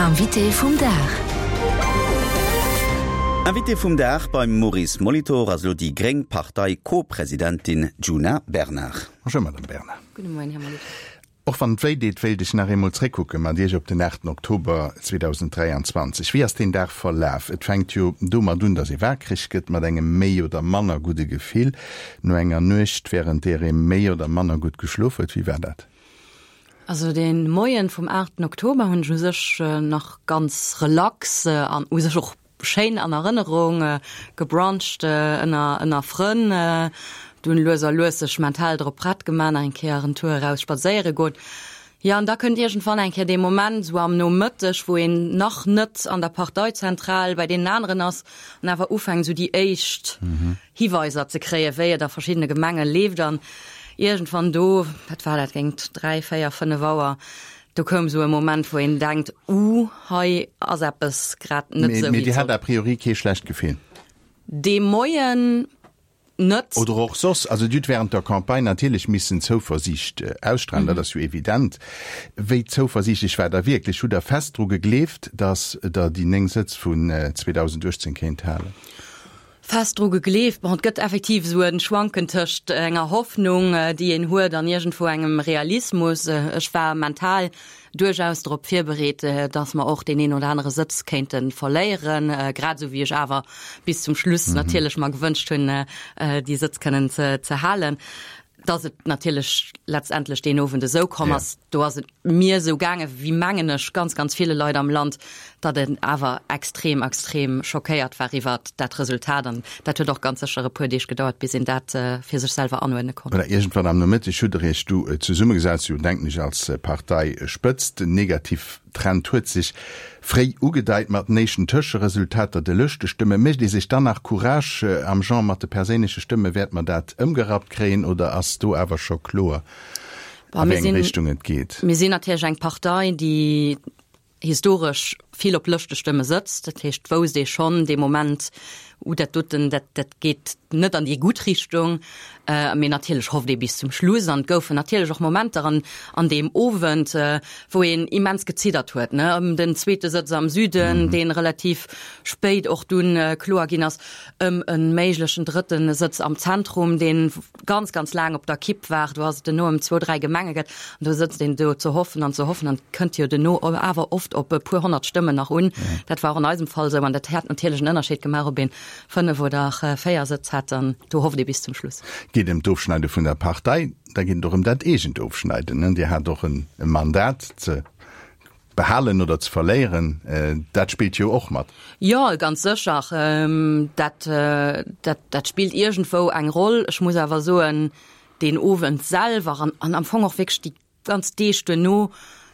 Invité vum Dag. Invité vum Dag beim Maurice Molitor ass elo déi gréng Partei-Co-Presidentin Djuna Bernard. Bonjour Madame Bernard. Gudde Moien, Här Molitor. Och wann et wéi deet, wéilt ech nach eemol zréckkucke mat Iech op den 8 Oktober 2023. Wéi ass deen Dag verlaf? Et fänkt jo domat un, datt ee waakreg gëtt mat engem méi oder manner gudde Gefill no enger Nuecht, wärend där ee méi oder manner gutt geschlof huet. Wéi war dat? Also dee Moien vum 8 Oktober hunn ech u sech nach ganz relax an u sech och Schéin an Erënnerung, gebruncht ënner ënner Frënn, dunn lues a lues sech mental drop prett gemaach, nach eng Kéier en Tour eraus spadséiere goen. Jo, an da kënnt iergendwann eng Kéier dee Moment, esou am Nomëtteg, wou een nach net an der Parteizentral bei deenen aneren ass an awer ufänkt, esou déi éischt Hiweiser ze kréien, wéi et a verschiddene Gemenge leeft. An iergendwann do, wat war dat, géint 3, 4, 5 Auer, Do koum esou e Moment, wou een denkt, Uh, hei ass eppes grad net esou, wéi et sollt. Mee Dir hat a priori kee schlecht Gefill? Dee Moien net. Oder och soss? Also Dir hutt wärend der Campagne natierlech missen Zouversiicht ausstrahlen, dat ass jo evident. Wéi zouversiichtlech waart Der wierklech? Hutt Der fest dru gegleeft, datt Der déi 9 Sëtz vun 2018 kéint halen? Fest dru gegleeft. Bon, et gëtt effektiv esou e Schwanken tëscht enger Hoffnung, déi een huet, an iergendwou engem Realismus. Ech war mental duerchaus drop virbereet, datt mer och deen een oder anere Sëtz kéinte verléieren, grad esou wéi ech awer bis zum Schluss natierlech mer gewënscht hunn, déi Sëtz kënnen ze halen. Datt et natierlech letztendlech deen Owend esou komm ass, do ass et mir esou gaange wéi, mengen ech, ganz, ganz ville Leit am Land, datt een awer extrem, extrem schockéiert war iwwert dat Resultat. An dat huet och ganz sécher e puer Deeg gedauert, bis een dat fir sech selwer anuerdne konnt. Voilà, iergendwann am Nomëtteg hutt Der Iech du zesummegesat, sou denken ech, als Parteispëtzt. Den Negativtrend huet sech fréi ugedeit mat den éischten Tëscheresultater, de Lëschtestëmme. Mécht ee sech dann nach Courage am Genre, mat de perséinleche Stëmme wäert mer dat ëmgerappt kréien, oder ass do awer scho kloer, a wéi eng Richtung et geet? Mir sinn natierlech eng Partei, déi historesch vill op Lëschtestëmme sëtzt. Dat heescht, et wousst ee schonn dee Moment, Uh, dat doten, dat, dat geet net an déi gutt Richtung. Mee natierlech hofft ee bis zum Schluss. An et goufen natierlech och Momenter an, an deem Owend, wou een immens geziddert huet, ne, ëm den zweete Sëtz am Süden, dee relativ spéit och dunn kloer ginn ass, ëm e méiglechen drëtte Sëtz am Zentrum, dee ganz, ganz laang op der Kipp war. Do ass et duerno ëm zwou, dräi Gemenge gëtt. An do sëtzt een do ze hoffen an ze hoffen an et kënnt jo duerno awer oft op e puer honnert Stëmmen nach un. Dat war och an eisem Fall esou an dat hätt natierlech en Ënnerscheed gemaach, ob een 5 oder 4 Sëtz hätt an do hofft ee bis zum Schluss. Geet ëm d'Ofschneide vun der Partei, da geet et och ëm dat eegent Ofschneiden. Dir hat och e Mandat ze behalen oder ze verléieren, dat spillt jo och mat. Jo, ganz sécher, dat, dat, dat spillt iergendwou eng Roll. Ech muss awer soen, deen Owend selwer an, an am Fong och wierklech déi ganz Deeg duerno,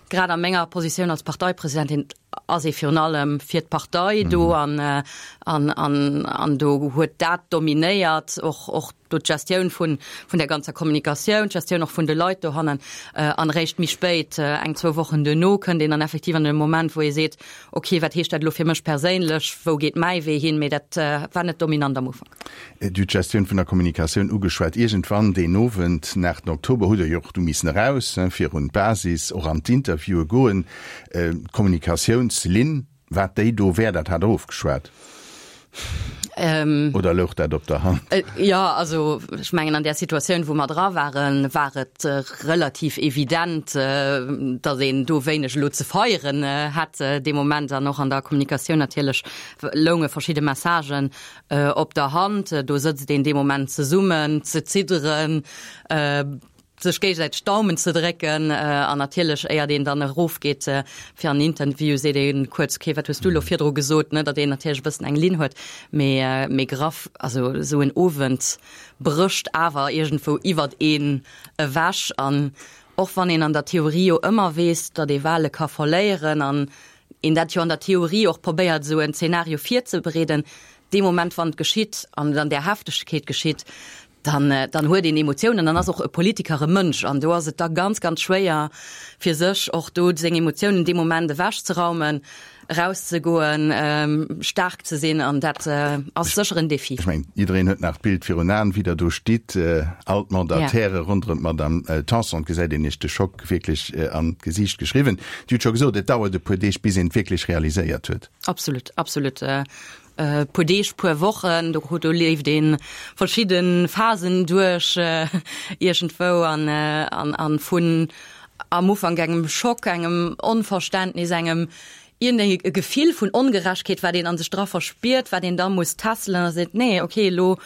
grad a menger Positioun als Parteipresidentin, ass ee virun allem fir d'Partei do an, an, an, an do huet dat dominéiert, och, och do d'Gestioun vun, vun der ganzer Kommunikatioun, d'Gestioun och vun de Leit dohannen. An eréischt méi spéit, eng, zwou Wochen duerno, kënnt een dann effektiv an e Moment, wou ee seet, okay, wat heescht dat elo fir mech perséinlech, wou geet mäi Wee hin? Mee dat war net dominant am Ufank. Dir hutt d'Gestioun vun der Kommunikatioun ugeschwat. Iergendwann deen Owend, den 8 Oktober, hutt Der jo och du missen eraus, virun d'Basis, och an d'Interviewe goen. D'Kommunikatiounslinn, Wat déi do wär, dat hat Der ofgeschwat? Oder louch dat op der Hand? Jo, also ech mengen an där Situatioun, wou mer dra waren, war et relativ evident, datt een do wéineg elo ze feieren hätt dee Moment. An och an der Kommunikatioun natierlech lounge verschidde Messagen op der Hand. Do sëtzt een dee Moment zesummen, ze zidderen, sech géigesäiteg d'Daumen ze drécken an natierlech éiert een dann erofgeet fir an den Interview seet ee kuerz, okay, wat hues du elo virdru gesot, ne, datt een natierlech e bëssen eng Linn huet, mee mee graff, also esou en Owend brécht awer iergendwou iwwert een ewech an och wann een an der Theorie jo ëmmer weess, datt ee Wale ka verléieren an een dat jo an der Theorie och probéiert esou en Zeenario virzebereeden, dee Moment wann et geschitt an et an där Heftegkeet geschitt. Dann, dann huet een Emotiounen, dann ass och e Politiker e Mënsch an do ass et da ganz, ganz schwéier fir sech och do seng Emotiounen dee Moment ewechzeraumen, erauszegoen, staark ze sinn an dat ass sécher en Defi. Ech mengen, jiddereen huet nach d'Bild virun Aen, wéi Der do stitt, all d'Mandataire ronderëm d'Madame Tanson, et gesäit een Iech de Schock wierklech an d'Gesiicht geschriwwen. Dir hutt scho gesot, et dauert e puer Deeg, bis een et wierklech realiséiert huet. Absolut, absolut. Puer Deeg, puer Wochen, do do leeft ee verschidde Phasen duerch iergendwou an an an vun am Ufank engem Schock, engem Onverständnis, engem iergendeng e Gefill vun Ongerechtheet, wat een a sech dra verspiert, wat een da muss tässelen a seet, nee, okay, elo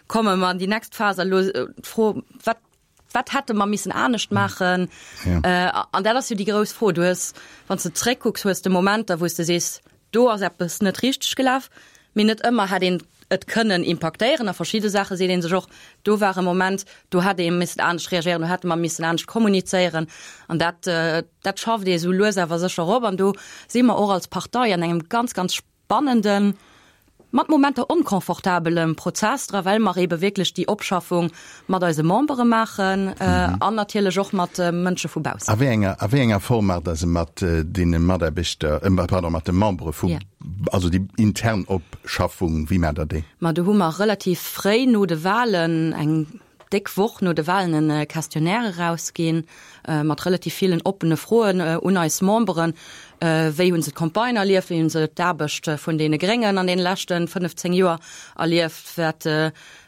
komme mer an déi nächst Phas a elo d'Fro, wat Wat hätte mer missen anescht maachen? Ja. An dat ass jo déi grouss Fro. Du hues, wann s de zréckkucks, hues de Momenter, wou s de sees, do ass eppes net richteg gelaf, mee net ëmmer hätt een et kënnen impaktéieren. A verschidde Saache seet ee sech och, do war e Moment, do hätt ee missen anescht reagéieren, do hätte mer missen anescht kommunizéieren. An dat, dat schafft ee sou lues awer sécher op. An do si mer och als Partei an engem ganz, ganz spannenden, mat Momenter onconfortabelem Prozess dra, well mer eebe wierklech déi Opschaffung mat eise Membere maachen an natierlech och mat Mënsche vu baussen. A wéi enger, a wéi enger Form maacht Der se mat deene Mataarbechter, pardon, mat de Membere vu, also déi intern Opschaffung, wéi maacht Der déi? Ma do hu mer relativ fréi no de Wahlen eng déck Woch no de Wahlen e Questionnaire erausginn, mat relativ villen oppene Froen un eis Memberen. Wéi hu se d'Campagne erlieft? Wéi hu se d'Aarbecht vun deene Gréngen an deene leschte 15 Joer erlieft? Wat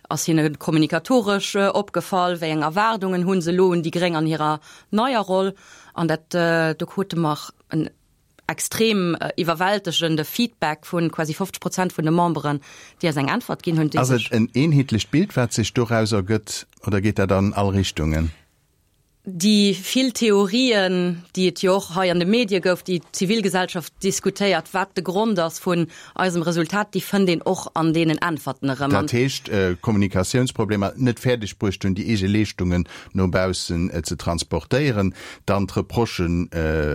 ass hinne kommunikatoresch opgefall? Wéi eng Erwaardungen hu se elo un déi Gréng an hirer neier Roll? An dat, do krute mer en extrem iwwerwältegende Feedback vu quasi 50 Prozent vun de Memberen, déi eis eng Äntwert ginn hunn. Ass et en eenheetlecht Bild, wat sech doraus ergëtt, oder geet dat an all Richtungen? Déi vill Theorien, déi et jo och hei an de Medie gouf, déi d'Zivilgesellschaft diskutéiert, wat de Grond ass vun eisem Resultat, déi fënnt een och an deenen Äntwerten erëm. Dat heescht, Kommunikatiounsproblemer, net fäerdeg bruecht hunn, déi eege Leeschtungen no baussen ze transportéieren, Dann d'Reprochen,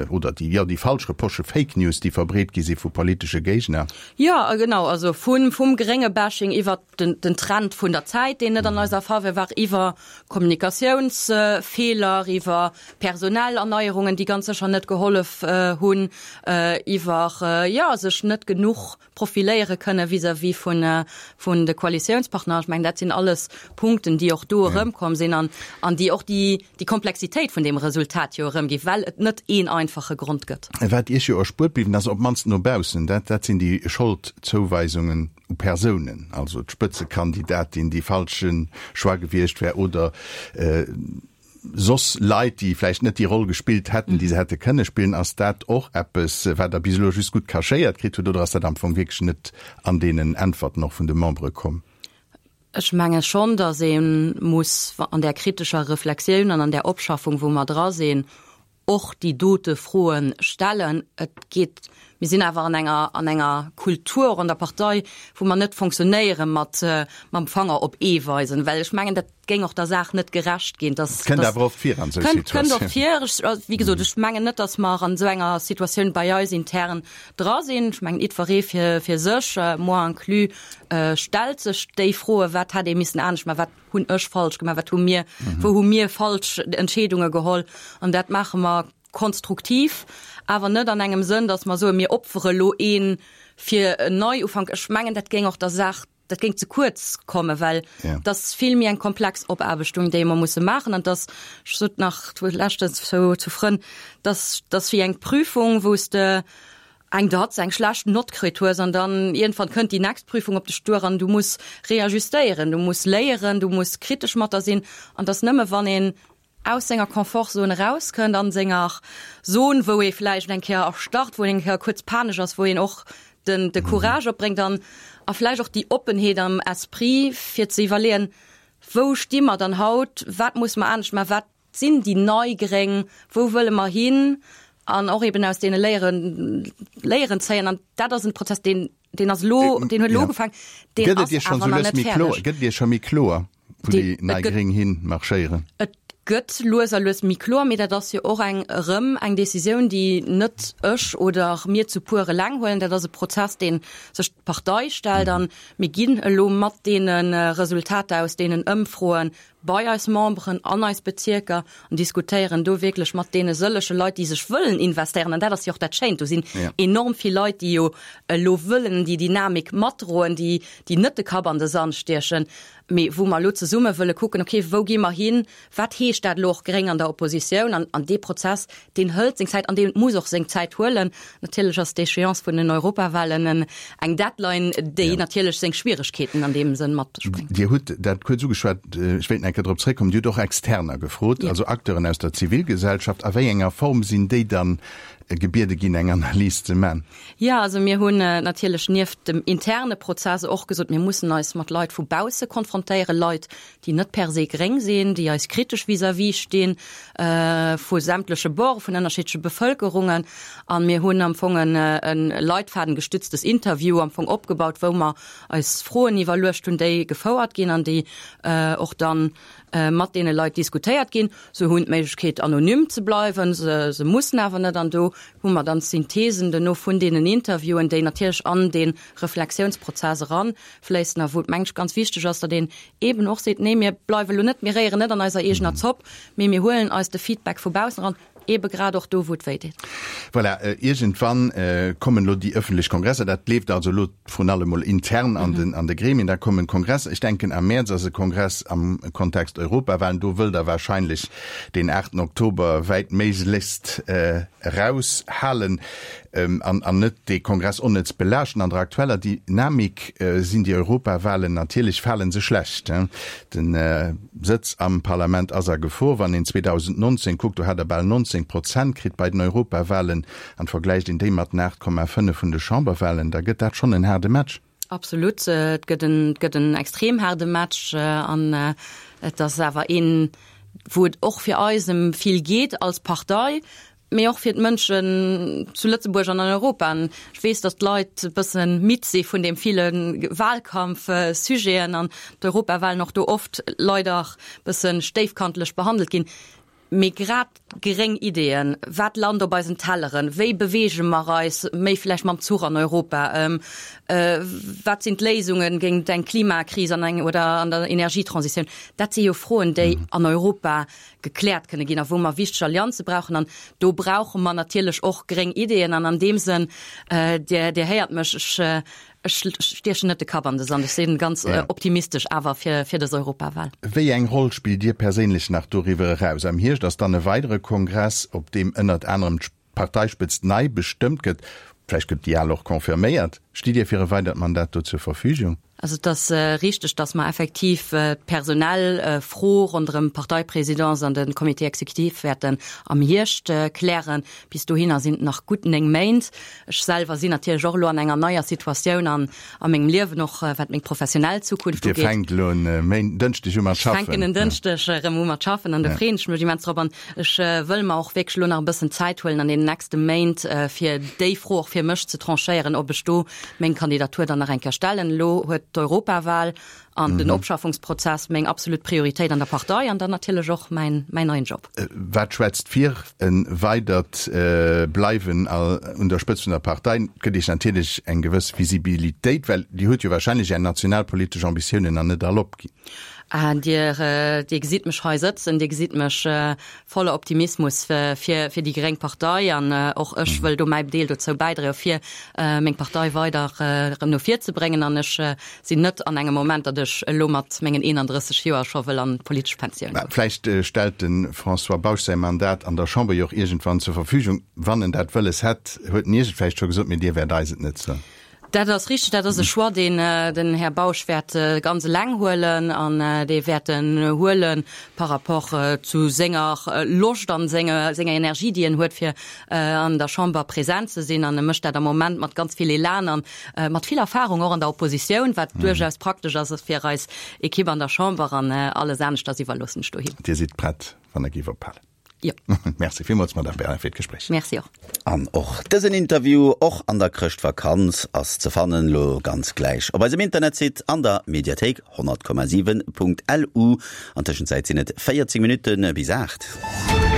oder déi, jo, déi falsch Reprochen, Fake News, déi verbreet gi si vu politesche Géigner. Jo, genau, also vu vum Grénge-Bashing iwwert den, den Trend vun der Zäit, deen net an eiser Faveur war, iwwer Kommunikatiounsfeeler, iwwer personell Erneierungen, déi ganz sécher net gehollef hunn, iwwer, jo, sech net genuch profiléiere kënne vis-à-vis vun, vun de Koalitiounspartner. Ech mengen, dat sinn alles Punkten, déi och do erëmkomm sinn an, an déi och déi, déi Komplexitéit vun deem Resultat jo erëmgi, well et net een einfache Grond gëtt. Wat Iech jo erspuert bliwwen ass, op d'mannst no baussen, dat, dat sinn déi Scholdzouweisungen u Persounen, also d'Spëtzekandidatin, déi falsche Choix gewiescht wär oder, soss Leit, déi vläicht net déi Roll gespillt hätten, déi se hätte kënne spillen. Ass dat och eppes, wat Der bis elo just gutt cachéiert kritt hutt, oder ass dat am Fong wierklech net an deenen Äntwerten och vun de Membere komm? Ech menge schonn, datt ee muss an där kritescher Reflexioun an an där Opschaffung, wou mer dra sinn, och déi dote Froe stellen. Et geet, mir sinn awer an enger, an enger Kultur och an der Partei, wou mer net fonctionnéiere mat mam Fanger op ee weisen, well ech mengen, dat géing och der Saach net gerecht ginn. Dass, Kënnt awer oft vir an esou Situatiounen. Kënnt oft vir. Ech, wéi gesot, ech mengen net, dass mer an esou enger Situatioun bei eis intern dra sinn. Ech mengen, jiddweree fir, fir sech, moi inclus, stellt sech déi Froen, wat hätt ee missen anescht maachen, wat hunn ech falsch gemaach, wat hu mir, wou hu mir falsch Entscheedunge geholl. An dat maache mer konstruktiv, awer net an engem Sënn, datt mer soen, mir opfere lo ee fir en Neiufank. Ech mengen, dat géing och der Saach, dat géing ze kuerz kommen, well et ass vill méi eng komplex Opaarbechtung, déi mer musse maachen. An et ass, ech sot nach leschtens zu Frënn, dass dass wéi eng Prüfung, wou s de eng Datz, eng schlecht Nott kritt hues an dann iergendwann kënnt déi next Prüfung op dech duer an du muss reajustéieren, du muss léieren, du muss kritesch mat der sinn an dass nëmme wann een aus senger Confortzone erauskënnt, an senger Zon, wou ee vläicht eng Kéier erstarrt, wou een eng Kéier kuerz panesch ass, wou een och den de Courage opbréngt an a vläicht och déi Oppenheet am Esprit fir ze iwwerleeën, wou sti mer dann haut, wat musse mer anescht maachen, wat sinn déi nei Gréng, wou wëlle mer hin an och eben aus deene Léieren Léieren zéien. An dat ass en Prozess, deen, deen ass elo, deen huet elo ugefaangen, deen ass awer nach net fäerdeg. Gëtt et Iech scho méi kloer, wou déi nei Gréng hin marschéieren? Et. Gëtt lues a lues méi kloer, mee dat ass jo och eng erëm eng Décisioun, déi net ech oder mir zu puer eleng huelen. Dat ass e Prozess, dee sech d'Partei stellt. A mir ginn elo mat deene Resultater aus deenen Ëmfroe bei eis Memberen an eis Bezierker an diskutéieren do wierklech mat deene sëllege Leit, déi sech wëllen investéieren. An dat ass jo och dat Schéint, do sinn enorm vill Leit, déi jo elo wëllen déi Dynamik matdroen, déi net de Kapp an de Sand stiechen. Mee wou mer elo zesumme wëlle kucken, okay, wou gi mer hin, wat heescht dat elo och gréng an der Oppositioun? An, an dee Prozess, deen hëlt seng Zäit an dee muss och seng Zäit huelen. Natierlech ass d'Échéance vun den Europawahlen en, eng Deadline, déi natierlech seng Schwieregkeeten an deem Sënn mat sech bréngt. Dir hutt dat kuerz ugeschwat, ech wéilt nach eng Kéier drop zréckkommen, Dir hutt och Externer gefrot, also Acteuren aus der Zivilgesellschaft. A wéi enger Form sinn déi dann gebiede ginn, eng Analys ze man? Jo, also mir hunn natierlech nieft dem interne Prozess och gesot, mir mussen eis mat Leit vu bausse konfrontéieren, Leit, déi net per se gréng sinn, déi eis kritesch vis-à-vis stinn, vu sämtleche Borde, vun ënnerschiddleche Bevëlkerungen. A mir hunn am Fong e leitfadengestütztes Interview am Fong opgebaut, wou mer eis Froen iwwerluecht hunn, déi gefouert ginn an déi och dann mat deene Leit diskutéiert ginn. Se hunn d'Méiglechkeet anonym ze bleiwen, se se mussen awer net. An do hu mer dann d'Synthesen duerno vun deenen Interviewen, déi natierlech an dee Reflexiounsprozess eranfléissen a wou et mengen ech ganz wichteg ass, datt een eeben och seet, nee mir bleiwe lo net, mir réieren net an eiser eegener Zopp, mee mir huelen eis de Feedback vu baussen eran. Ebe grad och do, wou et wéi deet. Voilà, iergendwann kommen elo déi ëffentlech Kongresser. Dat leeft also elo vrun allem mol intern an den, an de Gremien. Da kommen d'Kongresser. Ech denken, am Mäerz ass e Kongress am Kontext Europawahlen. Do wëllt Der wahrscheinlech deen aachten Oktober wäitméiglechst eraushalen an, an net dee Kongress onnëtz belaaschten. An der aktueller Dynamik sinn déi Europawahlen natierlech, fale se schlecht. Den Sëtz am Parlament ass a Gefor. Wann een 2019 kuckt, do hat der bal 19 Prozent kritt bei den Europawahlen, an vergläicht een déi mat den 8,5 vun de Chamberwahlen, da gëtt dat schonn en haarde Match. Absolut, et gëtt en, et gëtt en extrem haarde Match an et ass awer een, wou et och fir eis ëm vill geet als Partei, mee och fir d'Mënschen zu Lëtzebuerg an an Europa. An ech weess, datt d'Leit e bësse midd si vun deem ville Wahlkampfsujeten an d'Europawahlen och do oft leider e bësse stéifkantlech behandelt ginn. Mee grad gréng Ideeën, wat lant op eisen Telleren, wéi beweege mer eis méi vläicht mam Zuch an Europa, wat sinn d'Léisunge géint eng Klimakris an eng oder an der Energietransitioun, dat si jo Froen, déi an Europa gekläert kënne ginn a wou mer wichteg Allianze brauchen. An do brauche mer natierlech och gréng Ideeën. An an deem Sënn, Dir, Dir héiert mech, ech, ech stiechen net de Kapp an de Sand. Ech si ganz optimistesch awer fir, fir dës Europawal. Wéi eng Roll spillt Dir perséinlech nach doriwwer eraus? Am Hierscht ass dann e weidere Kongress, op deem ënnert anerem d'Parteispëtzt nei bestëmmt gëtt. Vläicht gëtt déi al och confirméiert. Stitt Dir fir e weidert Mandat do zur Verfügung? Also et ass richteg, datt mer effektiv d'personell Fro ronderëm d'Parteipresidence an de Comité exécutif wäerten am Hierscht klären. Bis dohinner sinn et nach gutt 9 Méint. Ech selwer sinn natierlech och elo an enger neier Situatioun an a mengem Liewen, och wat meng professionell Zukunft ugeet. Dir fänkt elo en Dënschdeg u mat schaffen. Ech fänken en Dënschdeg erëm u mat schaffen an do freeën ech mech immens drop. An ech wëll mer och wierklech elo nach e bëssen Zäit huelen an deenen nächste Méint, fir déi Fro och fir mech ze tranchéieren, ob ech do meng Kandidatur dann nach eng Kéier stellen. Elo huet d'Europawahl an den Opschaffungsprozess meng absolut Prioritéit an der Partei an dann natierlech och mäin, mäin neien Job. Wat schwätzt fir e weidert Bleiwen un der Spëtzt vun der Partei? Et gëtt Iech natierlech eng gewëss Visibilitéit, well Dir hutt jo wahrscheinlech Är nationalpolitesch Ambitiounen nach net all opginn. Dir, Dir gesitt mech hei sëtzen, Dir gesitt mech voller Optimismus fir fir déi gréng Partei an och ech wëll do mäi Deel dozou bäidroe fir meng Partei weider erëm no vir ze bréngen an ech sinn net an engem Moment, datt ech elo mat mengen 31 Joer scho wëll an d'politesch Pensioun goen. Vläicht stellt de François Bausch säi Mandat an der Chamber jo och iergendwann zur Verfügung, wann en dat wëlles hätt, huet en Iech et vläicht scho gesot, mee Dir wäert eis et net soen. Dat ass richteg. Dat ass e Choix, deen den Här Bausch wäert ganz eleng huelen an dee wäert en huele par rapport zu senger Loscht an senger Energie, déi en huet, fir an der Chamber present ze sinn. An e mécht dat am Moment mat ganz vill Elan an mat vill Erfahrung och an der Oppositioun, wat duerchaus praktesch ass fir eis Ekipp an der Chamber. An alles aneschters iwwerloossen ech do him. Dir sidd prett, wann e géif ophalen? Jo. Merci villmools, Madame Bernard, fir d'Gespréich. Merci och. An och dësen Interview, och an der Chrëschtvakanz, ass ze fannen, lo ganz gläich op eisem Internetsite an der Mediathéik 100,7.lu. An Tëschenzäit sinn et 14 Minutte bis 8.